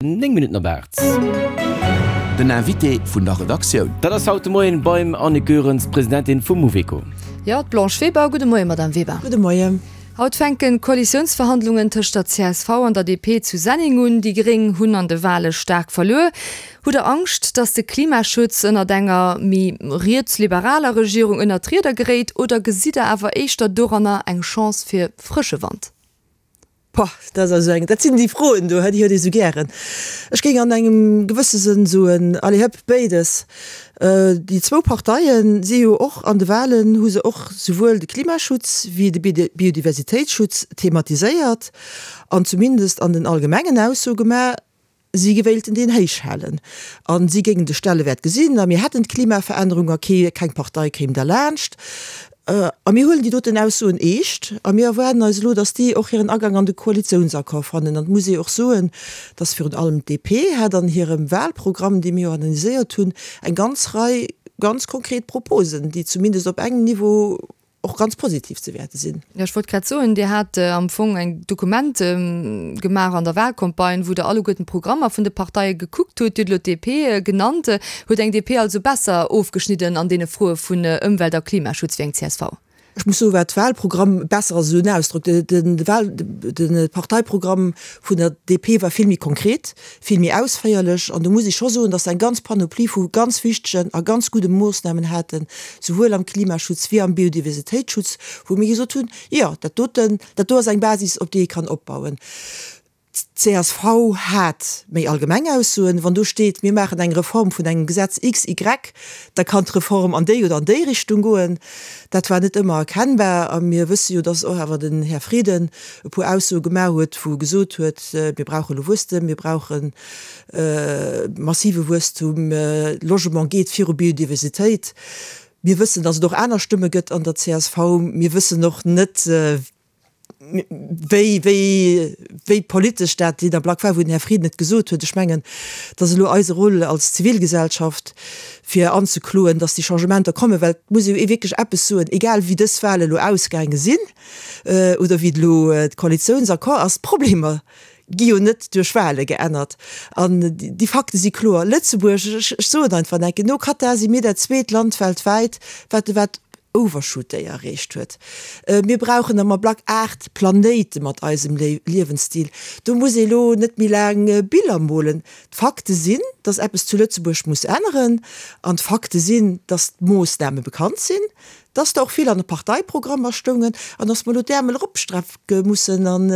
9 Minutten op 8. Den Invité vun der Redaktioun. Dat ass haut de Moien beim Annick Goerens, Presidentin vum Mouveco. Jo, d'Blanche Weber. Gudde Moien, Madame Weber. Gudde Moien. Haut fänken d'Koalitiounsverhandlungen tëscht der csv an der DP zu Senneng un. Déi Gréng hunn an de Wale staark verluer. Hutt der Angscht, datt de Klimaschutz ënnert enger méi rietsliberaler Regierung ënnert d'Rieder geréit oder gesitt der awer éischter doranner eng Chance fir frësche Wand? Boah, dat ass also eng, dat sinn déi Froen do, déi huet ee sou gären. Ech géing an engem gewësse Sënn soen, allez hëpp, béides. Déi zwou Parteie si jo och an de Wahlen, hu se och souwuel de Klimaschutz wéi de Biodiversitéitsschutz thematiséiert an zumindest an den allgemengen Aussoe gemaach, Si wéilten deen héich halen a si géingen de Stellewäert gesinn a mir hätten d'Klimaverännerung a kee, keng Partei kéim derlaanscht. A mir huelen déi doten Aussoen eescht a mir erwaarden eis elo, datt déi och hiren Agang an de Koalitiounsaccord fannen. An et muss ee och soen, datt virun allem d'DP hat an hirem Wahlprogramm, dee mir jo analyséiert hunn, eng ganz Rei ganz konkret Proposen, déi zumindest op engem Niveau, och ganz positiv ze wäerte sinn. Jo, ech wollt grad soen, Dir hat am Fong eng Dokument gemaach an der Wahlcampagne, wou Der alleguerten d'Programmer vun de Parteie gekuckt hutt. Dir hutt elo d'DP genannt. Huet eng DP also besser ofgeschnidden an deene Froe vun Ëmwelt a Klimaschutz wéi eng csv? Ech muss soen, wat Wahlprogramm, besser ass esou en Ausdrock, de Wahl, de Parteiprogramm vun der DP war vill méi konkret, vill méi ausféierlech an do muss ech scho soen, dass se eng ganz Panoplie vu ganz wichtegen a ganz gudde Moossnamen haten, souwuel am Klimaschutz wéi am Biodiversitéitsschutz, wou mir gesot hunn, jo, dat doten, dat do ass eng Basis, op déi ee kann opbauen. D'CSV hat méi allgemeng Aussoen. Wann do steet, mir maachen eng Reform vun engem Gesetz XY, da kann d'Reform an déi oder an déi Richtung goen. Dat war net ëmmer erkennbar a mir wësse jo, dass och awer den Här Frieden e puer Aussoe gemaach huet, wou e gesot huet, mir brauche elo Wuesstem, mir brauche massive Wuesstum, Logement geet viru Biodiversitéit. Mir wëssen, datt et och aner Stëmme gëtt an der csv. Mir wëssen och net, wéi, wéi, wéi politesch dat deen Ablack war, wou den Här Frieden et gesot huet. Ech mengen, et ass elo eise Rôle als Zivilgesellschaft, fir anzekloen, datt déi Changementer kommen, well et muss ee wierklech eppes soen, egal wéi dës Wale elo ausgaange sinn, oder wéi elo de Koalitiounsaccord ass, d'Problemer gi jo net duerch Wahle geännert. An déi Fakte si kloer, Lëtzebuerg, ech soen einfach enke, no Katar si mir dat zweet Land weltwäit, wat de wat Overshoot Day erreecht huet. Mir brauchen am Ablack 8 Planéite mat eisem Liewensstil. Do muss ee lo net méi laang Biller molen. D'Fakte sinn, datt eppes zu Lëtzebuerg muss änneren. An d'Fakte sinn, datt d'Moossname bekannt sinn, Dass der och vill an de Parteiprogrammer stoungen an dass mer elo d'Äermel eropstrecke mussen an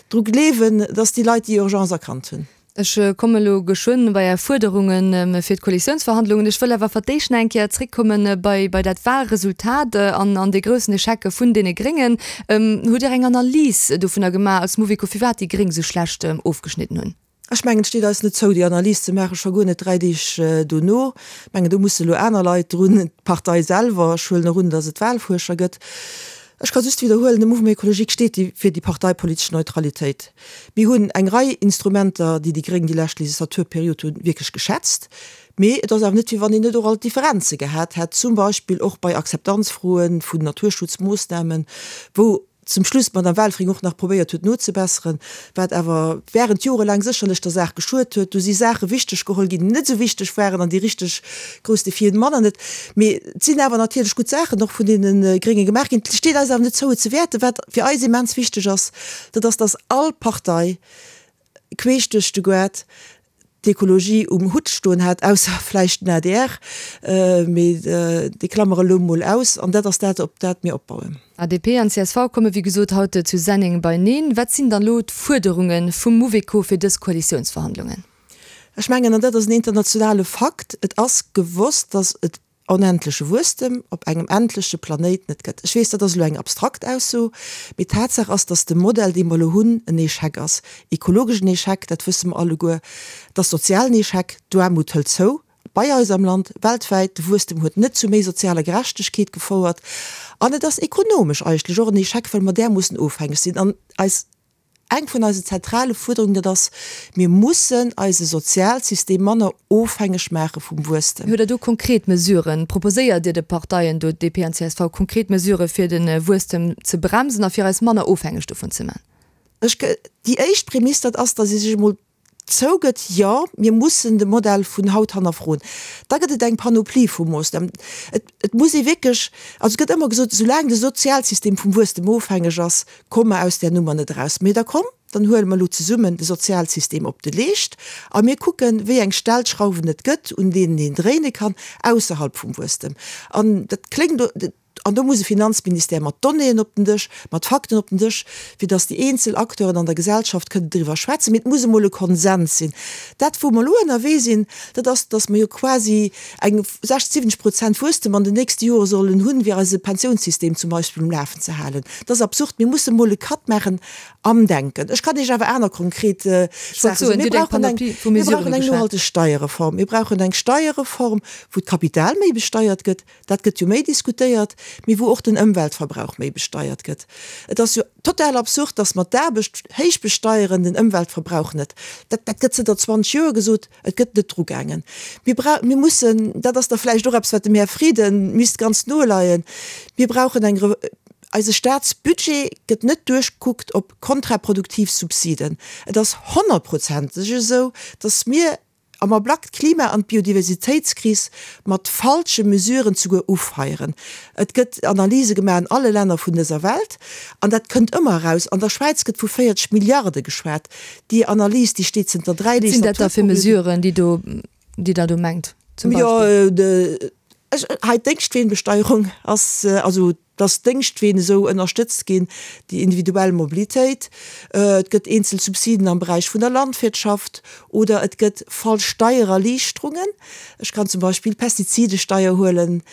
dru gleewen, dass déi Leit déi Urgence erkannt hunn. Ech komme elo geschwënn bei Är Fuerderunge fir d'Koalitiounsverhandlungen. Ech wëll awer fir d'éischt nach eng Kéier zréckkomme bei bei dat Wahlresultat an an dee groussen Echec vun deene Gréngen. Hutt Dir eng Analys dovunner gemaach als Mouveco, firwat déi Gréng esou schlecht ofgeschnidden hunn? Ech mengen, et steet eis net zou, déi Analys ze maachen, scho guer net 3 Deeg dono. Ech mengen, do musse elo aner Leit drun, d'Partei selwer. Ech huelen och un, datt et Wahlfuerscher gëtt. Ech ka just widderhuelen, de Mouvement écologique steet fir déi parteipolitesch Neutralitéit. Mir hunn eng Rei Instrumenter, déi déi Gréng déi lescht Legislaturperiod hunn, wierklech geschätzt. Mee et ass awer net, wéi wann een net och alt Differenze gehat hätt, zum Beispill och bei Akzeptanzfroe vun Naturschutzmoossnamen, wou, zum Schluss d'Madame Welfring och nach probéiert huet nozebesseren, wat awer während jorelaang sécherlech der Saach geschuet huet. Do si Saache wichteg geholl ginn, déi net esou wichteg waren an déi richteg grouss Defien manner net. Mee et sinn awer natierlech gutt Saachen och vun deene Grénge gemaach ginn. Et steet eis awer net zou, et ze wäerten. Wat fir eis immens wichteg ass, dat ass, dass all Partei queesch duerch de Goart d'Ekologie um Hutt stoen hat, ausser vläicht den adr, mee déi klammere elo mol aus, an dat ass dat, op dat mir opbauen. ADP an csv komme wéi gesot haut zu Senneng beineen. Wat sinn dann elo d'Fuerderunge vum Mouveco fir dës Koalitiounsverhandlungen? Ech mengen, an dat ass en internationale Fakt, et ass gewosst, datt et onendleche Wuesstem op engem endleche Planéit net gëtt. Ech weess, dat ass elo eng abstrakt Ausso, mee Tatsaach ass, datt de Modell, dee mer elo hunn, en Echec ass. Ekologesch en Echec, dat wësse mer alleguer. Et ass sozial en Echec, d'Aarmut hëlt zou, bei eis am Land, weltwäit. De Wuesstem huet net zu méi sozialer Gerechtegkeet gefouert. An et ass ekonomesch eigentlech och en Echec, well mer därmoossen ofhängeg sinn an eis Eng vun eisen zentrale Fuerderungen, dat ass, Mir mussen eise Sozialsystem manner ofhängeg maache vum Wuesstem. Hutt Der do konkret Mesuren? Proposéiert Dir de Parteien do, DP an csv, konkret Mesurë fir de Wuesstem ze bremsen a fir eis manner ofhängeg dovun ze man? Ech, déi éischt Prämiss, dat ass, datt ee sech emol. zougëtt, jo, mir mussen de Modell vun haut hannerfroen. Da gëtt et eng Panoplie vu Moossnamen. Et, et muss ee wierklech, also et gëtt ëmmer gesot, soulaang de Sozialsystem vum Wuesstem ofhängeg ass, komme mer aus där Nummer net eraus. Mee da komm, dann huele mer elo zesummen de Sozialsystem op de Leescht a mir kucken, wéi eng Stellschrauwen et gëtt, un deenen een dréine kann, ausserhalb vum Wuesstem. An dat kléngt, An do muss e Finanzministère mat Donnéeën op den Dësch, mat Fakten op den Dësch, fir datt déi eenzel Acteuren an der Gesellschaft kënnen driwwer schwätzen. Mee et muss emol e Konsens sinn. Dat, wou mer elo ënnerwee sinn, dat ass, datt mer jo quasi eng 60, 70 Prozent Wuesstem an den nächste Jore sollen hunn, fir eise Pensiounssystem zum Beispill um Lafen ze halen. Dat ass absurd. Mir musse mol e Cut maachen am Denken. Ech kann Iech awer aner konkret Saache soen. Mir brauchen eng, mir brauchen eng nohalteg Steierreform. Mir brauchen eng Steierreform, wou d'Kapital méi besteiert gëtt. Dat gëtt jo méi diskutéiert, mee wou och den Ëmweltverbrauch méi besteiert gëtt. Et ass jo total absurd, dass mer d'Aarbecht héich besteieren, den Ëmweltverbrauch net. Dat, dat gëtt zënter 20 Joer gesot, et gëtt net drugaangen. Mir brau, mir mussen, dat ass da vläicht och eppes, wat dem Här Frieden misst ganz no leien, mir brauchen eng Re, eise Staatsbudget gëtt net duerchgekuckt op kontraproduktiv Subsiden. Et ass honnertprozenteg esou, dass mir, Am Ablack d'Klima an d'Biodiversitéitskris mat falsche Mesuren zuguer ufeieren. Et gëtt Analyse gemaach an alle Länner vun dëser Welt an dat kënnt ëmmer eraus. An der Schwäiz gëtt vu 40 Milliarde geschwat. Déi Analys, déi steet zënter 3 Wat sinn dat da fir Mesuren, déi do, déi Der do mengt zum Beispill? Jo, hei d'Déngschtweenbesteierung ass, also dass d'Déngschtween esou ënnerstëtzt ginn, déi individuell Mobilitéit, et gëtt eenzel Subsiden am Beräich vun der Landwirtschaft oder et gëtt falsch Steiererliichterungen. Ech kann zum Beispill d'Pestizidesteier huelen.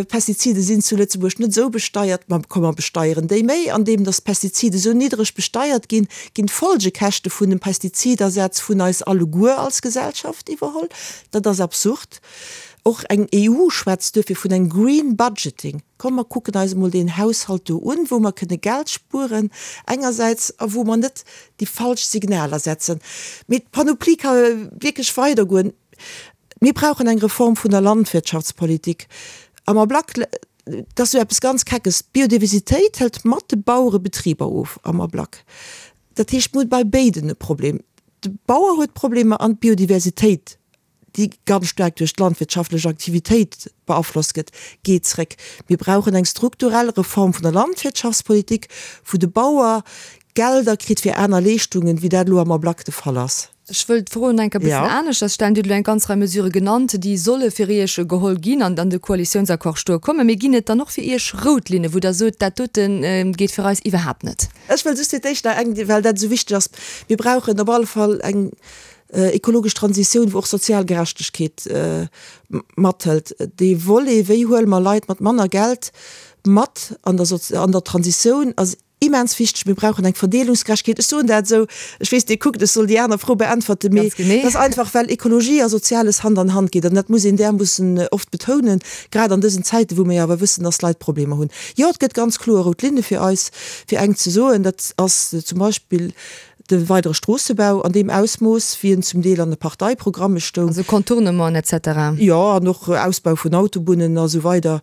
Pestizide sinn zu Lëtzebuerg net esou besteiert, ma komm mer besteieren déi méi. Andeem dass d'Pestizide esou niddreg besteiert ginn, ginn d'Folgekäschte vun dem Pestizidersatz vun eis alleguer als Gesellschaft iwwerholl. Dat ass absurd. Och eng EU schwätzt duerfir vun engem Green Budgeting. Komm mer kucken eis emol deen Haushalt do un, wou mer kënne Geld spueren engersäits a wou mer net déi falsch Signaler setzen. Mee d'Panoplie ka wierklech weidergoen. Mir brauchen eng Reform vun der Landwirtschaftspolitik. Am Ablack, dat ass jo eppes ganz Keckes, d'Biodiversitéit hëlt mat de Bauerebetriber of am Ablack. Dat heescht, mir hu bei béiden e Problem. De Bauer huet Problemer an d'Biodiversitéit déi ganz staark duerch d'landwirtschaftlech Aktivitéit beaflosst gëtt, geet zréck. Mir brauchen eng strukturell Reform vun der Landwirtschaftspolitik, wou de Bauer Gelder kritt fir aner Leeschtungen, wéi dat elo am Ablack de Fall ass. Ech wëll d'Fro nach eng Kéier e bëssen aneschters stellen. Dir hutt elo eng ganz Rei Mesurë genannt, déi solle fir Iech geholl ginn an an de Koalitiounsaccord stoe kommen. Mee ginn et dann och fir Iech rout Linne, wou Der sot, dat dote geet fir eis iwwerhaapt net? Ech wëll just fir d'éischt nach eng, well dat esou wichteg ass, Mir brauchen op alle Fall eng Ekologesch Transitioun, wou och sozial Gerechtegkeet mathëlt. Dee Volet, wéi huele mer Leit mat manner Geld mat an der an der Transitioun, ass immens wichteg. Mir brauchen eng Verdeelungsgerechtegkeet. Ech soen dat esou, ech weess, Dir kuckt, ech soll déi aner Fro beäntwerten, mee dat ass einfach, well Ekologie a Soziales Hand an Hand geet. An dat muss een därmoossen oft betounen, grad an dësen Zäiten, wou mir jo awer wëssen, dass Leit Problemer hunn. Jo, et gëtt ganz kloer rout Linne fir eis. Fir eng ze soen, dat ass zum Beispill De weidere Stroossebau an deem Ausmooss, wéi en zum Deel an de Parteiprogramme stoung. Also Contournementen et cetera. Jo, an och Ausbau vun Autobunnen a sou weider.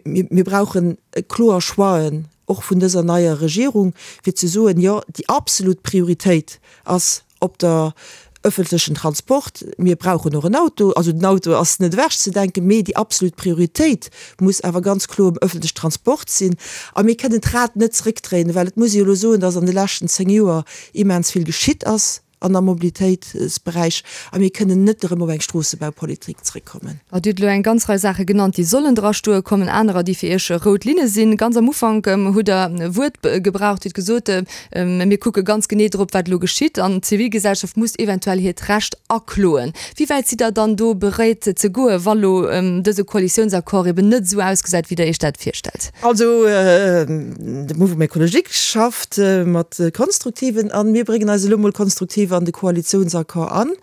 Mir brauchen kloer Choixen, och vun dëser neier Regierung, fir ze soen, jo, déi absolut Prioritéit ass op der ëffentlechen Transport. Mir brauchen och en Auto, also den Auto ass net ewechzedenken, mee déi absolut Prioritéit muss awer ganz kloer um ëffentlechen Transport sinn. A mir kënnen d'Rad net zréckdréinen, well et muss ee jo elo soen, dass an de leschten 10 Joer immens vill geschitt ass an am Mobilitéitsberäich a mir kënnen net erëm op eng Stroossebaupolitik zréckkommen. Dir hutt elo eng ganz Rei Saache genannt, déi sollen drastoe kommen, anerer, déi fir Iech rout Linne sinn. Ganz am Ufank hutt Der e Wuert gebraucht, Dir hutt gesot, Mir kucke ganz genee drop, wat elo geschitt, an d'Zivilgesellschaft muss eventuell hiert Recht akloen. Wéi wäit sidd Der dann do beréit ze goen, wa lo dëse Koalitiounsaccord eben net esou ausgesäit, wéi Der Iech dat virstellt? Also, de Mouvement Écologique schafft mat Konstruktiven an mir bréngen eis elo mol konstruktiv an de Koalitiounsaccord an.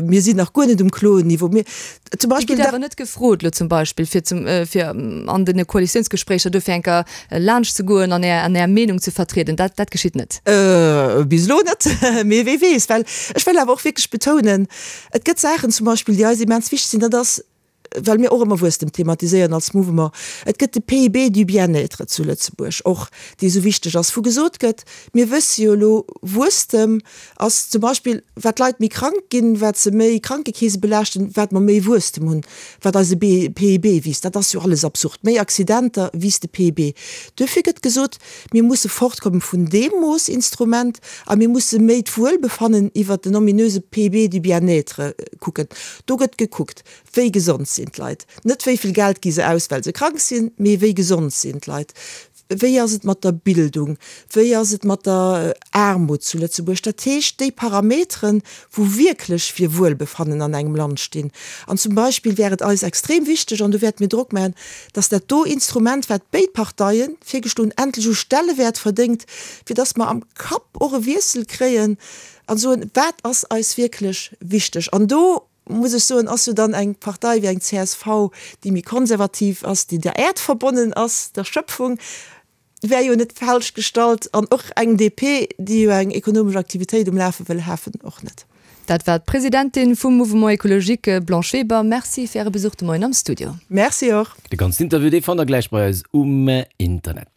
Mir sinn nach guer net um Kloen-Niveau. Mir zum Beispill. Dir gitt awer net gefrot elo zum Beispill, fir zum, fir an den Koalitiounsgespréicher dofir eng Kéier laanscht ze goen an Är, an Är Meenung ze vertrieden. Dat, dat geschitt net. Bis elo net, mee wee weess. Well ech wëll awer och wierklech betounen, et gëtt Saachen zum Beispill, déi eis immens wichteg sinn, dat ass. well mir och ëmmer Wuesstem thematiséieren als Mouvement, et gëtt de PIB du bien-être zu Lëtzebuerg och, dee esou wichteg ass, wou gesot gëtt, mir wësse jo elo, Wuesstem ass zum Beispill, wat d'Leit méi krank ginn, wat se méi Krankekeese belaaschten, wat mer méi Wuesstem hunn, wat eise PIB wiisst. Dat ass jo alles absurd. Méi Accidenter wiisst de PIB. Duerfir gëtt gesot, Mir musse fortkomme vun deem Moossinstrument a mir musse méi d'Wuelbefannen iwwert den ominöse PIB du bien-être kucken. Do gëtt gekuckt, wéi gesond sinn d'Leit. Net wéi vill Geld gi se aus, well se krank sinn, mee wéi gesond sinn d'Leit. Wéi ass et mat der Bildung? Wéi ass et mat der Aarmut zu Lëtzebuerg? Dat heescht, déi Parameteren, wou wierklech fir Wuelbefannen an engem Land stinn. An zum Beispill wär et eis extrem wichteg, an do wäerte mir Drock maachen, dass dat do Instrument, wat béid Parteie virgeschloen hunn, endlech u Stellewäert verdéngt, fir dass mer am Kapp och e Wiessel kréien a soen, wat ass eis wierklech wichteg. An do, muss ech soen, ass jo dann eng Partei wéi eng csv, déi méi konservativ ass, déi der Äerd verbonnen ass, der Schöpfung, wär jo net falsch gestallt an och eng DP, déi jo eng ekonomesch Aktivitéit um Lafe wëll hafen, och net. Dat war d'Presidentin vum Mouvement Ecologique, Blanche Weber. Merci fir Äre Besuch de Moien am Studio. Merci och. De ganzen Interview, dee fannt der gläich bei eis um Internet.